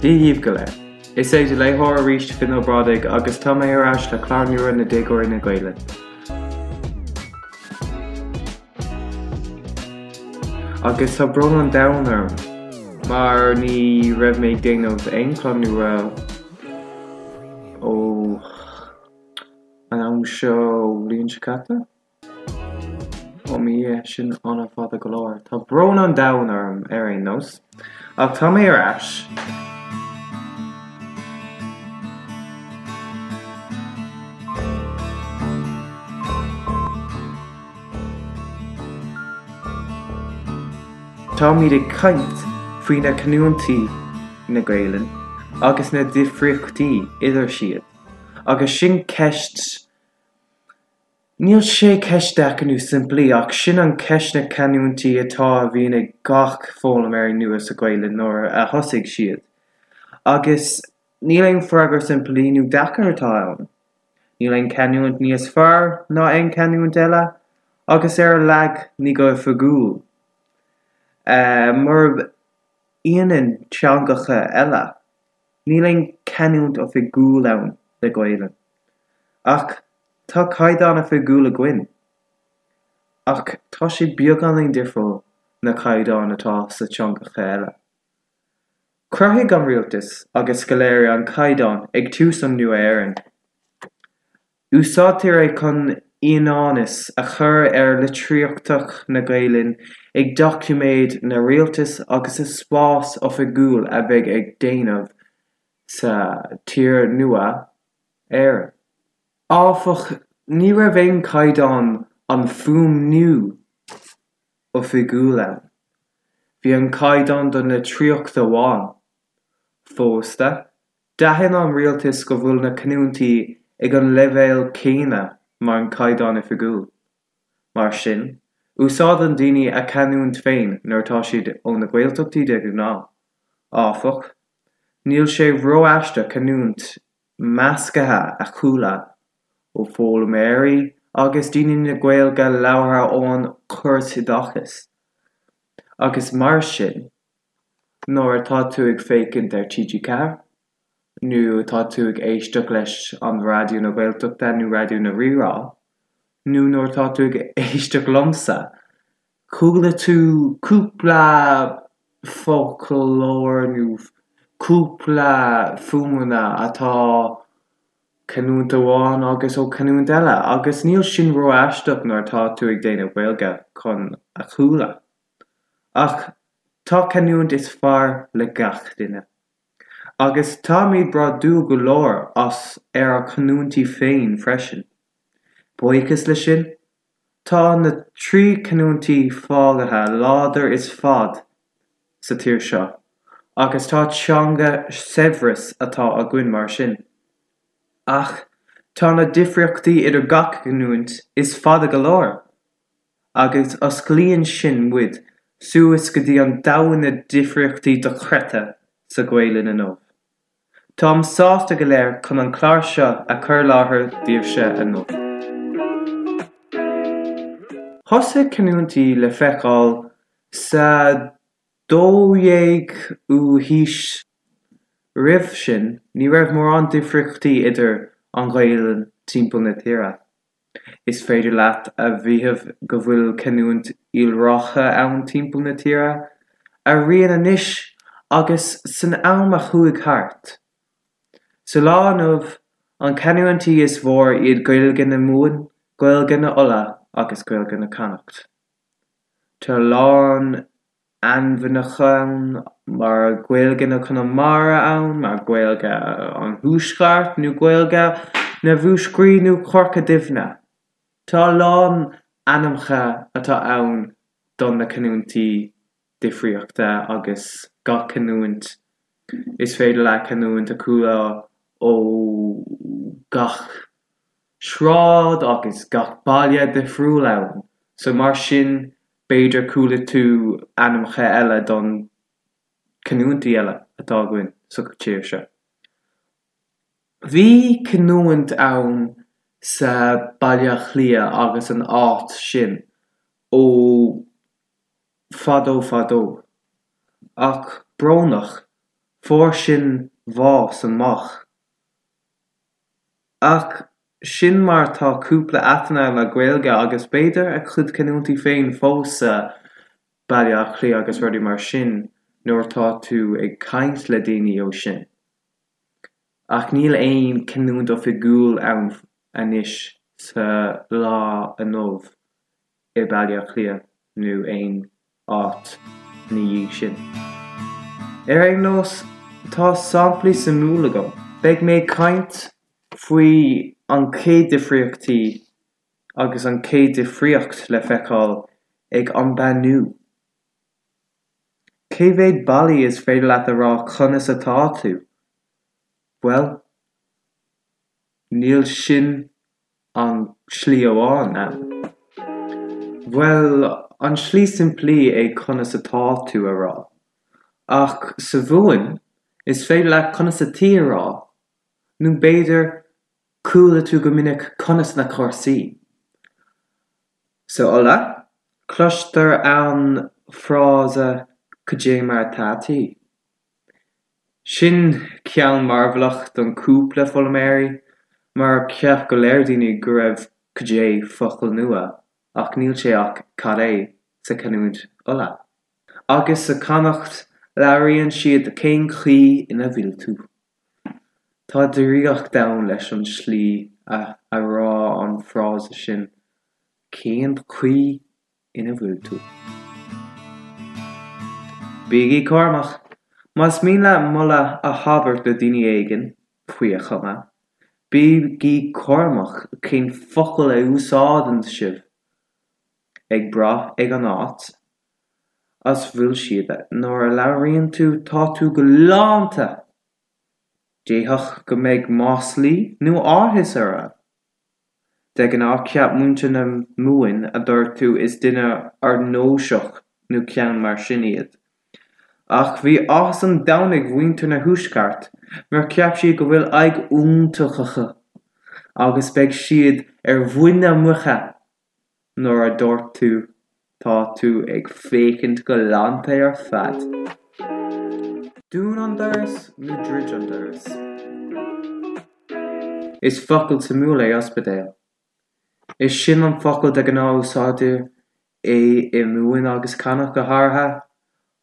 Dia dhaoibh go léir. Is é do léitheoir arís Finn Ó Brádaigh agus tá mé ar ais le clár nua na Déagóirí na Gaelainne. Agus tá brón an domhain orm mar ní raibh mé ag déanamh aon chlár nua ó an am seo bhliain seo caite? Ó mo Dhia, sin an-fhada go leor. Tá brón an domhain orm ar aon nós. Ach tá mé ar ais. Táimid ag caint faoi na canúintí na Gaelainne agus na difríochtaí idir siad. Agus sin ceist, níl sé ceist deacair nó simplí ach sin an ceist na canúintí atá a bhíonn ag gach foghlaimeoirí nua sa Ghaelainn nuair a thosaigh siad. Agus níl aon freagra simplí nó deacair atá ann. Níl aon canúint níos fearr ná aon canúint eile, agus ar a laghad ní go hoifigiúil. Murab ionann teangacha eile, níl aon canúint oifigiúil ann le Gaelainn. Ach tá caighdeán oifigiúil againn. Ach tá sé beagáinín difriúil na caighdeáin atá sa teangacha eile. Chruthaigh an rialtas agus scoláirí an caighdeán ag tús an Nua-Éireann. Úsáidtear é chun ionannas a chur ar litríocht na Gaelainne ag doiciméid na rialtas agus sa spás oifigiúil a bheidh ag déanamh sa tír nua, Éireann. Áfach, ní raibh aon caighdeán an fuaimniú oifigiúil ann. Bhí an caighdeán don litríocht amháin. Fosta, d'aithin an rialtas go bhfuil na canúintí ag an leibhéal céanna mar an caighdeán oifigiúil. Mar sin, úsáideann daoine a canúint féin nuair atá siad ó na Gaeltachtaí de ghnáth. Áfach, níl sé ró-aisteach canúint measctha a chuala ó foghlaimeoirí agus daoine na Gaeilge labhartha ón chóras oideachais. Agus mar sin, nuair atá tú ag féachaint ar TG4, nó atá tú ag éisteacht leis an Raidió na Gaeltachta nó Raidió na Rí-Rá, nó nuair atá tú ag éisteacht liomsa, chuala tú cúpla foclóir nó cúpla fuaimeanna atá canúint amháin agus ó canúint eile agus níl sin ró-aisteach nuair atá tú ag déanamh Gaeilge chun a chuala. Ach tá canúint is fearr le gach duine. Agus táimid bródúil go leor as ar ár canúintí féin freisin. Buíochas le sin, tá na 3 canúintí fágaithe láidir is fad sa tír seo agus tá teanga saibhreas atá againn mar sin. Ach tá na difríochtaí idir gach canúint is fada go leor agus osclaíonn sin muid suas go dtí an domhan na difríochtaí dochreidte sa Ghaelainn inniu. Táim sásta go léir chun an clár seo a chur i láthair daoibhse inniu. Thosaigh canúintí le feiceáil sa 12ú haois. Roimh sin, ní raibh mórán difríochtaí idir an Ghaelainn timpeall na tíre. Is féidir leat a mhaíomh go bhfuil canúint iolracha ann timpeall na tíre, araon anois agus san am a chuaigh thart. Sa lá inniu, an canúintí is mhór iad Gaeilge na Mumhan, Gaeilge na Uladh agus Gaeilge na Connacht. Tá a lán ainmneacha ann mar Gaeilge na Conamara ann, mar Gaeilge an Thuaisceart nó Gaeilge na Mhúscraí nó Chorca Duibhne. Tá a lán ainmneacha atá ann don na canúintí difríochta agus gach canúint is féidir leat canúint a chuala ó gach sráid agus gach baile difriúil ann so mar sin B'fhéidir chuala tú ainmneacha eile don canúintí eile atá againn sa tír seo. Bhí canúint ann sa Baile Átha Cliath agus an áit sin ó fadó fadó. Ach brónach, fuair sin bhás amach. Ach sin mar tá cúpla áiteanna le Gaeilge agus b'fhéidir a chuid canúintí féin fós sa Baile Átha Cliath agus rudaí mar sin nuair atá tú ag caint le daoine ó sin. Ach níl aon canúint oifigiúil ann anois sa lá inniu i Baile Átha Cliath nó aon áit ina dhiaidh sin. Ar aon nós, tá samplaí suimiúil agam. Beidh mé ag caint faoi an chéad difríochtaí agus an chéad difríocht le feiceáil ag an beannú. Cé mhéad bealaí is féidir leat a rá conas atá tú? Bhuel, níl sin an slí amháin ann. Bhuel, an slí simplí é conas atá tú a rá. Ach sa Mhumhain, is féidir leat conas ataoi a rá, nó b'fhéidir chuala tú go minic conas na cúrsaí. Sa Uladh, cloistear an frása cad é mar atá tú. Sin ceann mearbhlach don cúpla foghlaimeoirí, mar cheap go léir daoine go raibh cad é focal nua, ach níl sé ach cad é sa chanúint Uladh. Agus sa Connacht labhraíonn siad cén chaoi ina bhfuil tú. Tá draíocht ann leis an slí a a rá an frása sin, cén chaoi ina bhfuil tú. Bígí cúramach! Más mian leat moladh a thabairt do daoine éigin, faoi a chuma, bígí cúramach cén focal a úsáideann sibh, ag brath ag an áit as bhfuil siad, nuair a labhraíonn tú tá tú galánta! D'fhéadfadh go mbeidh maslaí nó áthas orthu. De ghnáth cheap muintir na Mumhan a dúirt tú is duine ardnósach nó ceann mar sin iad. Ach bhí áthas an domhain ag mhuintir na thuaisceart mar cheap siad go bhfuil aghaidh iontach acu agus beidh siad ar mhuin na muice nuair a dúirt tú tá tú ag féachaint galánta ar fad. Dún an doras nó druid an doras? Is focal suimiúil é ospidéal. Is sin an focal de ghnáth úsáidtear é i Mumhain agus Connacht go háirithe,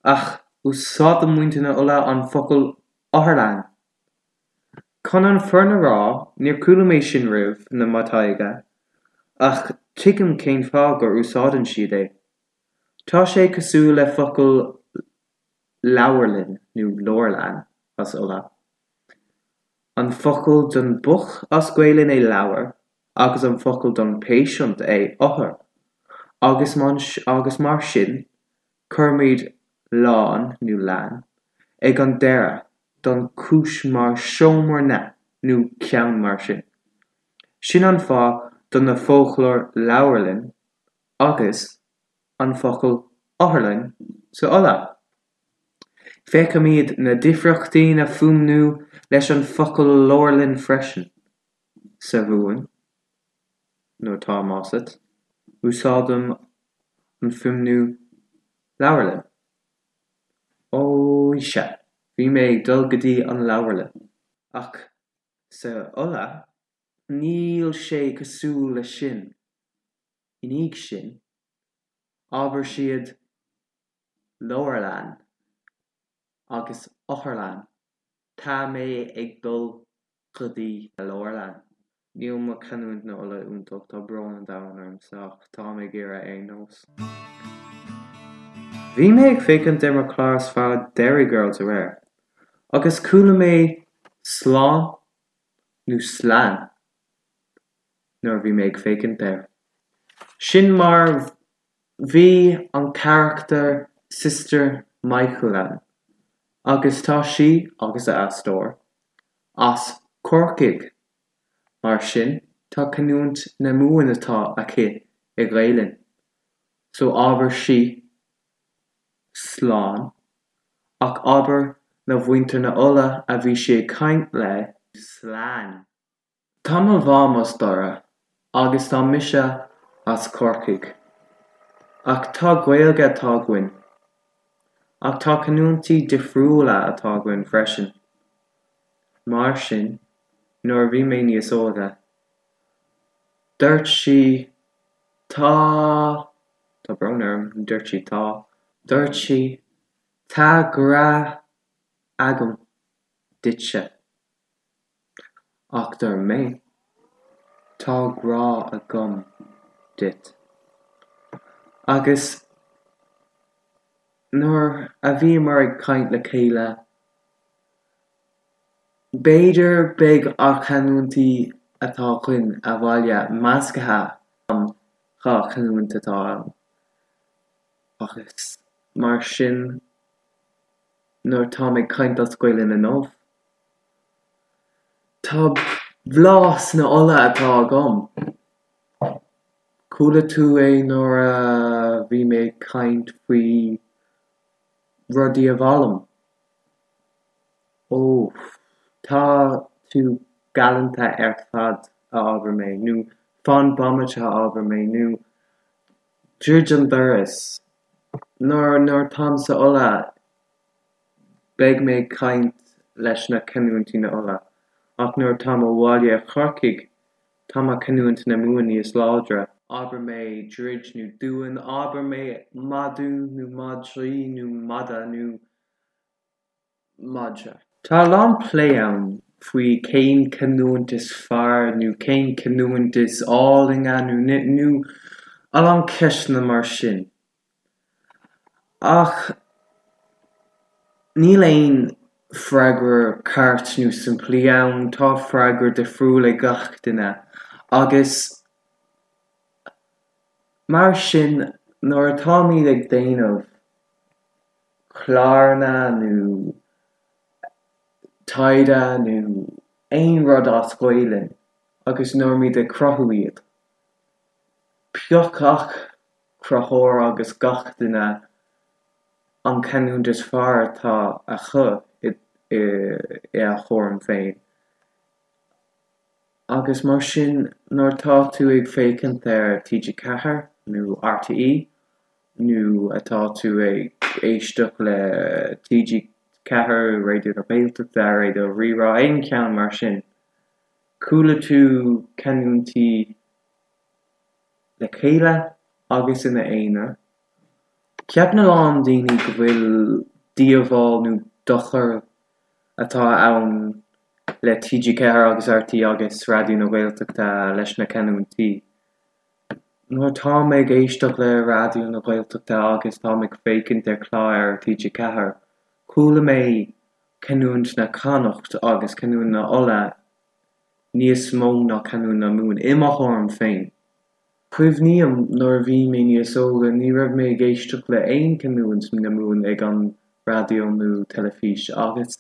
ach úsáideann muintir na Uladh an focal otharlann. Chun an fírinne a rá, níor chuala mé sin roimh na mo taighde, ach tuigim cén fáth gur úsáideann siad é. Tá sé cosúil le focal leabharlann nó leabharlann as Uladh. An focal don book as Gaelainn é leabhar agus an focal don patient é othar agus agus mar sin cuirimid lann nó lann ag an deireadh don chúis mar seomra na nó ceann mar sin. Sin an fáth do na foclóir leabharlann agus an focal otharlann sa Uladh. Feicimid na difríochtaí na fuaimniú leis an focal leabharlann freisin. Sa Mhumhain, nuair tá asat, úsáidim an fuaimniú leabharlann. Ó sea, bhí mé ag dul go dtí an leabharlann. Ach sa Uladh, níl sé cosúil le sin. I ndiaidh sin, abair siad leabharlann agus otharlann. Tá mé ag dul go dtí na leabharlann. Níl mo chanúint na Uladh iontach, tá brón an domhain ormsa ach táim ag iarraidh ar aon nós. Bhí mé ag féachaint ar mo chlár is fearr Derry Girls aréir agus chuala mé slán nó slán nuair a bhí mé ag féachaint air. Sin mar Bhí an carachtar Sister Michael ann agus tá sí, agus a aisteoir, as Corcaigh, mar sin tá canúint na Mumhan atá aici i Ghaelainn, so abair sí slán, ach abair na mhuintir na Uladh a bhí sí ag caint le. Slán. Tá mo mham as Doire agus tá mise as Corcaigh. Ach tá Gaeilge atá againn. Ach tá canúintí difriúla atá againn freisin. Mar sin, nuair a bhí mé níos óige, dúirt sí tá, tá brón orm, dúirt sí tá, dúirt sí tá grá agam duitse. Ach dúirt mé, Tá grá agam duit. Agus nuair a bhíomar ag caint le chéile, b'fhéidir beidh ár canúintí atá againn abhaile measctha an dá chanúint atá ann. Agus mar sin, nuair táim ag caint as Gaelainn inniu, Tá blas na Uladh atá agam. Chuala tú é nuair a bhí mé ag caint faoi rudaí a bhfoghlaim. Ó, tá tú galánta ar fad, a abair mé, nó fan bomaite, a abair mé, nó druid an doras. Nuair nuair táim sa Uladh, Beidh mé ag caint leis na canúintí na Uladh, ach nuair atáim abhaile i Chorcaigh, tá mo canúint na Mumhan níos láidre. Abair mé druid nó dún, abair mé madadh nó madraí nó mada nó madra. Tá a lán plé ann faoi cén canúint is fearr nó cén canúint is álainne nó nó a lán ceisteanna mar sin. Ach níl aon freagra ceart nó simplí ann, tá freagra difriúil ag gach duine agus mar sin nuair atáimid ag déanamh cláranna nó taighde nó aon rud as Gaelainn agus nuair muid ag cruthú iad, pioc gach cruthóir agus gach duine an canúint is fearr atá acu i a thuairim féin. Agus mar sin nuair atá tú ag féachaint ar TG4 nó RTÉ nó atá tú ag éisteacht le TG4, Raidió na Gaeltachta, Raidió Rí-Rá, aon cheann mar sin, chuala tú canúintí le chéile agus ina aonar. Ceapann a lán daoine go bhfuil díobháil nó dochar atá ann le TG4 agus RTÉ agus Raidió na Gaeltachta leis na canúintí. Nuair atáim ag éisteacht le Raidió na Gaeltachta agus táim ag féachaint ar chlár ar TG4, chuala mé canúint na Connacht agus canúint na Uladh níos mó ná canúint na Mumhan, i mo thuairim féin. Cuimhním nuair a bhí mé níos óga ní raibh mé ag éisteacht le aon canúint na Mumhan ag an raidió nó teilifís agus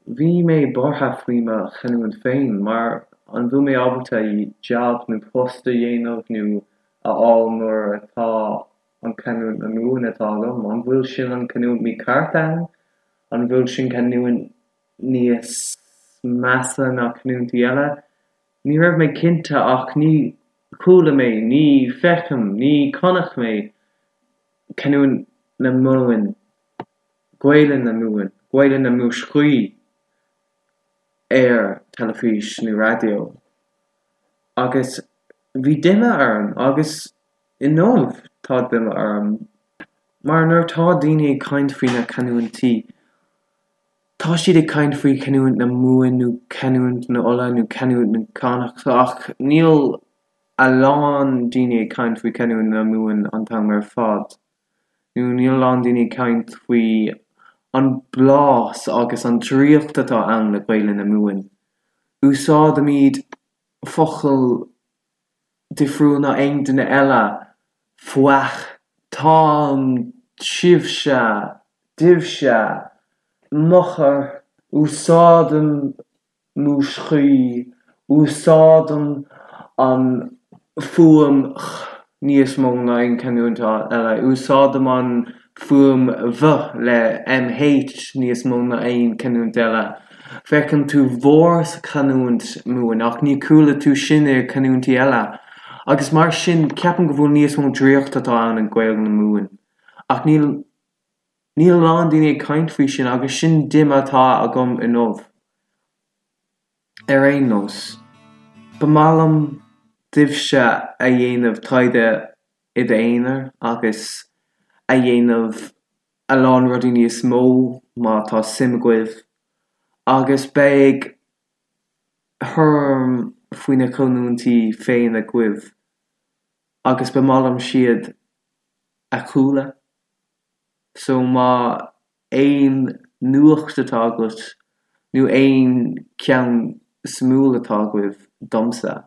bhí mé buartha faoi mo chanúint féin mar an bhfuil mé ábalta jab nó post a dhéanamh nó a fháil nuair atá an canúint na Mumhan atá agam? An bhfuil sin an canúint mícheart ann? An bhfuil sin canúint níos measa ná canúintí eile. Ní raibh mé cinnte ach ní chuala mé, ní feicim, ní chonaic mé canúint na Mumhan, Gaelainn na Mumhan, Gaelainn na Múscraí ar teilifís nó raidió. Agus bhí díomá orm agus inniu tá díomá orm mar nuair atá daoine ag caint faoi na canúintí, Tá siad ag caint faoi chanúint na Mumhan nó canúint na Uladh nó canúint na Connacht ach níl a lán daoine ag caint faoi chanúint na Mumhan an t-am ar fad nó níl a lán daoine ag caint faoi an blás agus an draíocht atá ann le Gaelainn na Mumhan. Úsáidimid focail difriúil ná aon duine eile, fuath, táim, sibhse, daoibhse, m'eochair, úsáidim Múscraí, úsáidim an fuaim ch níos mó ná aon chanúint eile, úsáidim an fuaim mh le mh níos mó ná aon chanúint eile. Feiceann tú bhur sa chanúint Mumhan ach ní chuala tú sin i canúintí eile. Agus mar sin ceapaim go bhfuil níos mó draíocht atá ann i Gaeilge na Mumhan. Ach níl níl a lán daoine ag caint faoi sin agus sin díomá atá agam inniu. Ar aon nós, ba maith liom daoibhse a dhéanamh taighde i d'aonar agus a dhéanamh a lán rudaí níos mó má tá suim agaibh agus beidh thuairim faoi na canúintí féin agaibh agus ba maith liom siad a chuala so má aon nuacht atá agat nó aon ceann suimiúil atá agaibh domsa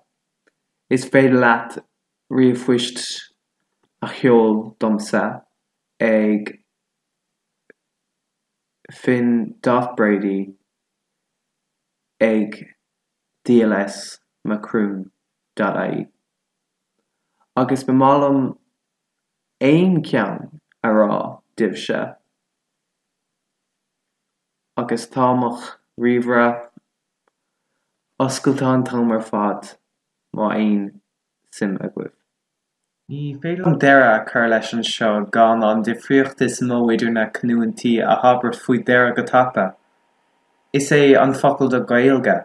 is féidir leat ríomhphoist a sheol domsa ag Finn dot Brady ag dlsmacroon dot ie agus ba maith liom aon cheann a rá daoibhse agus tá mo ríomhaire oscailte an t-am ar fad má aon suim agaibh. Ní féidir liom deireadh a chur leis anseo gan an difríocht is mó idir na canúintí a thabhairt faoi deara go tapa. Is é an focal do Gaeilge.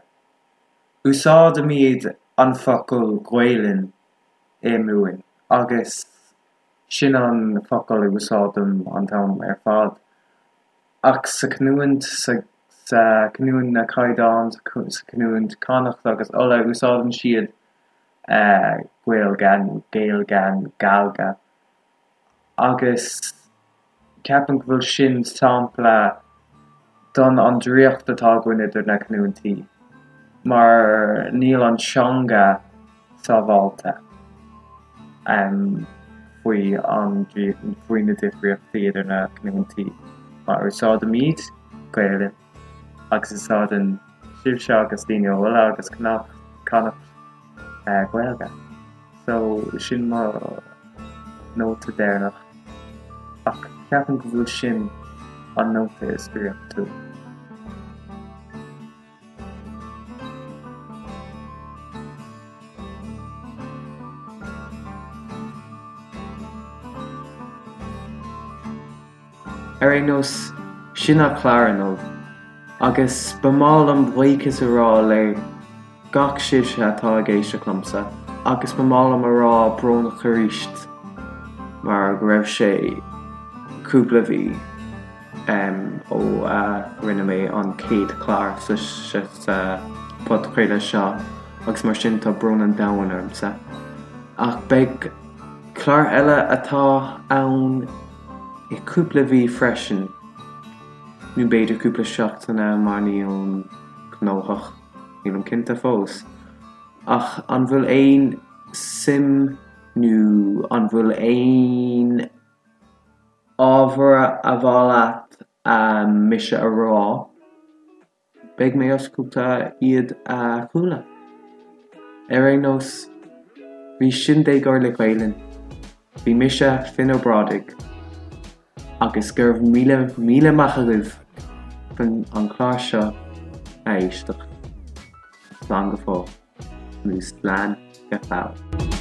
Úsáidimid an focal Gaelainn i Mumhain agus sin an focal a úsáidim an t-am ar fad. Ach sa chanúint, sa chanúint na Caighdeán, sa chanúint Connacht agus Uladh, úsáideann siad Gaeilge nó Gaeilge nó Galga agus ceapaim go bhfuil sin sampla don an draíocht atá againn idir na canúintí mar níl an teanga sábháilte faoi an faoi na difríochtaí idir na canúintí mar úsáidimid Gaelainn agus úsáideann sibhse agus daoine ó Uladh agus Connacht Gaeilge. So sin mo nóta deireanach ach ceapaim go bhfuil sin an nóta is draíochtúil. Ar aon nós, sin an clár inniu, agus ba maith liom buíochas a rá le gach sibhse atá ag éisteacht liomsa, agus ba maith liom a rá brónach arís mar go raibh sé cúpla mhí ó a rinne mé an chéad chlár sa podchraoladh seo agus mar sin tá brón an domhain ormsa. Ach beidh clár eile atá ann i cúpla mhí freisin, nó b'fhéidir cúpla seachtaine mar nílim gnóthach, nílim cinnte fós. Ach an bhfuil aon suim nó an bhfuil aon ábhar a mhaith leat mise a rá? Beidh mé oscailte iad a chuala. Ar aon nós, bhí sin Déagóir le Gaelainn. Bhí mise, Finn Ó Brádaigh, agus go raibh míle míle maith agaibh chun an clár seo a éisteacht. Slán go fóill, nó slán go fóill.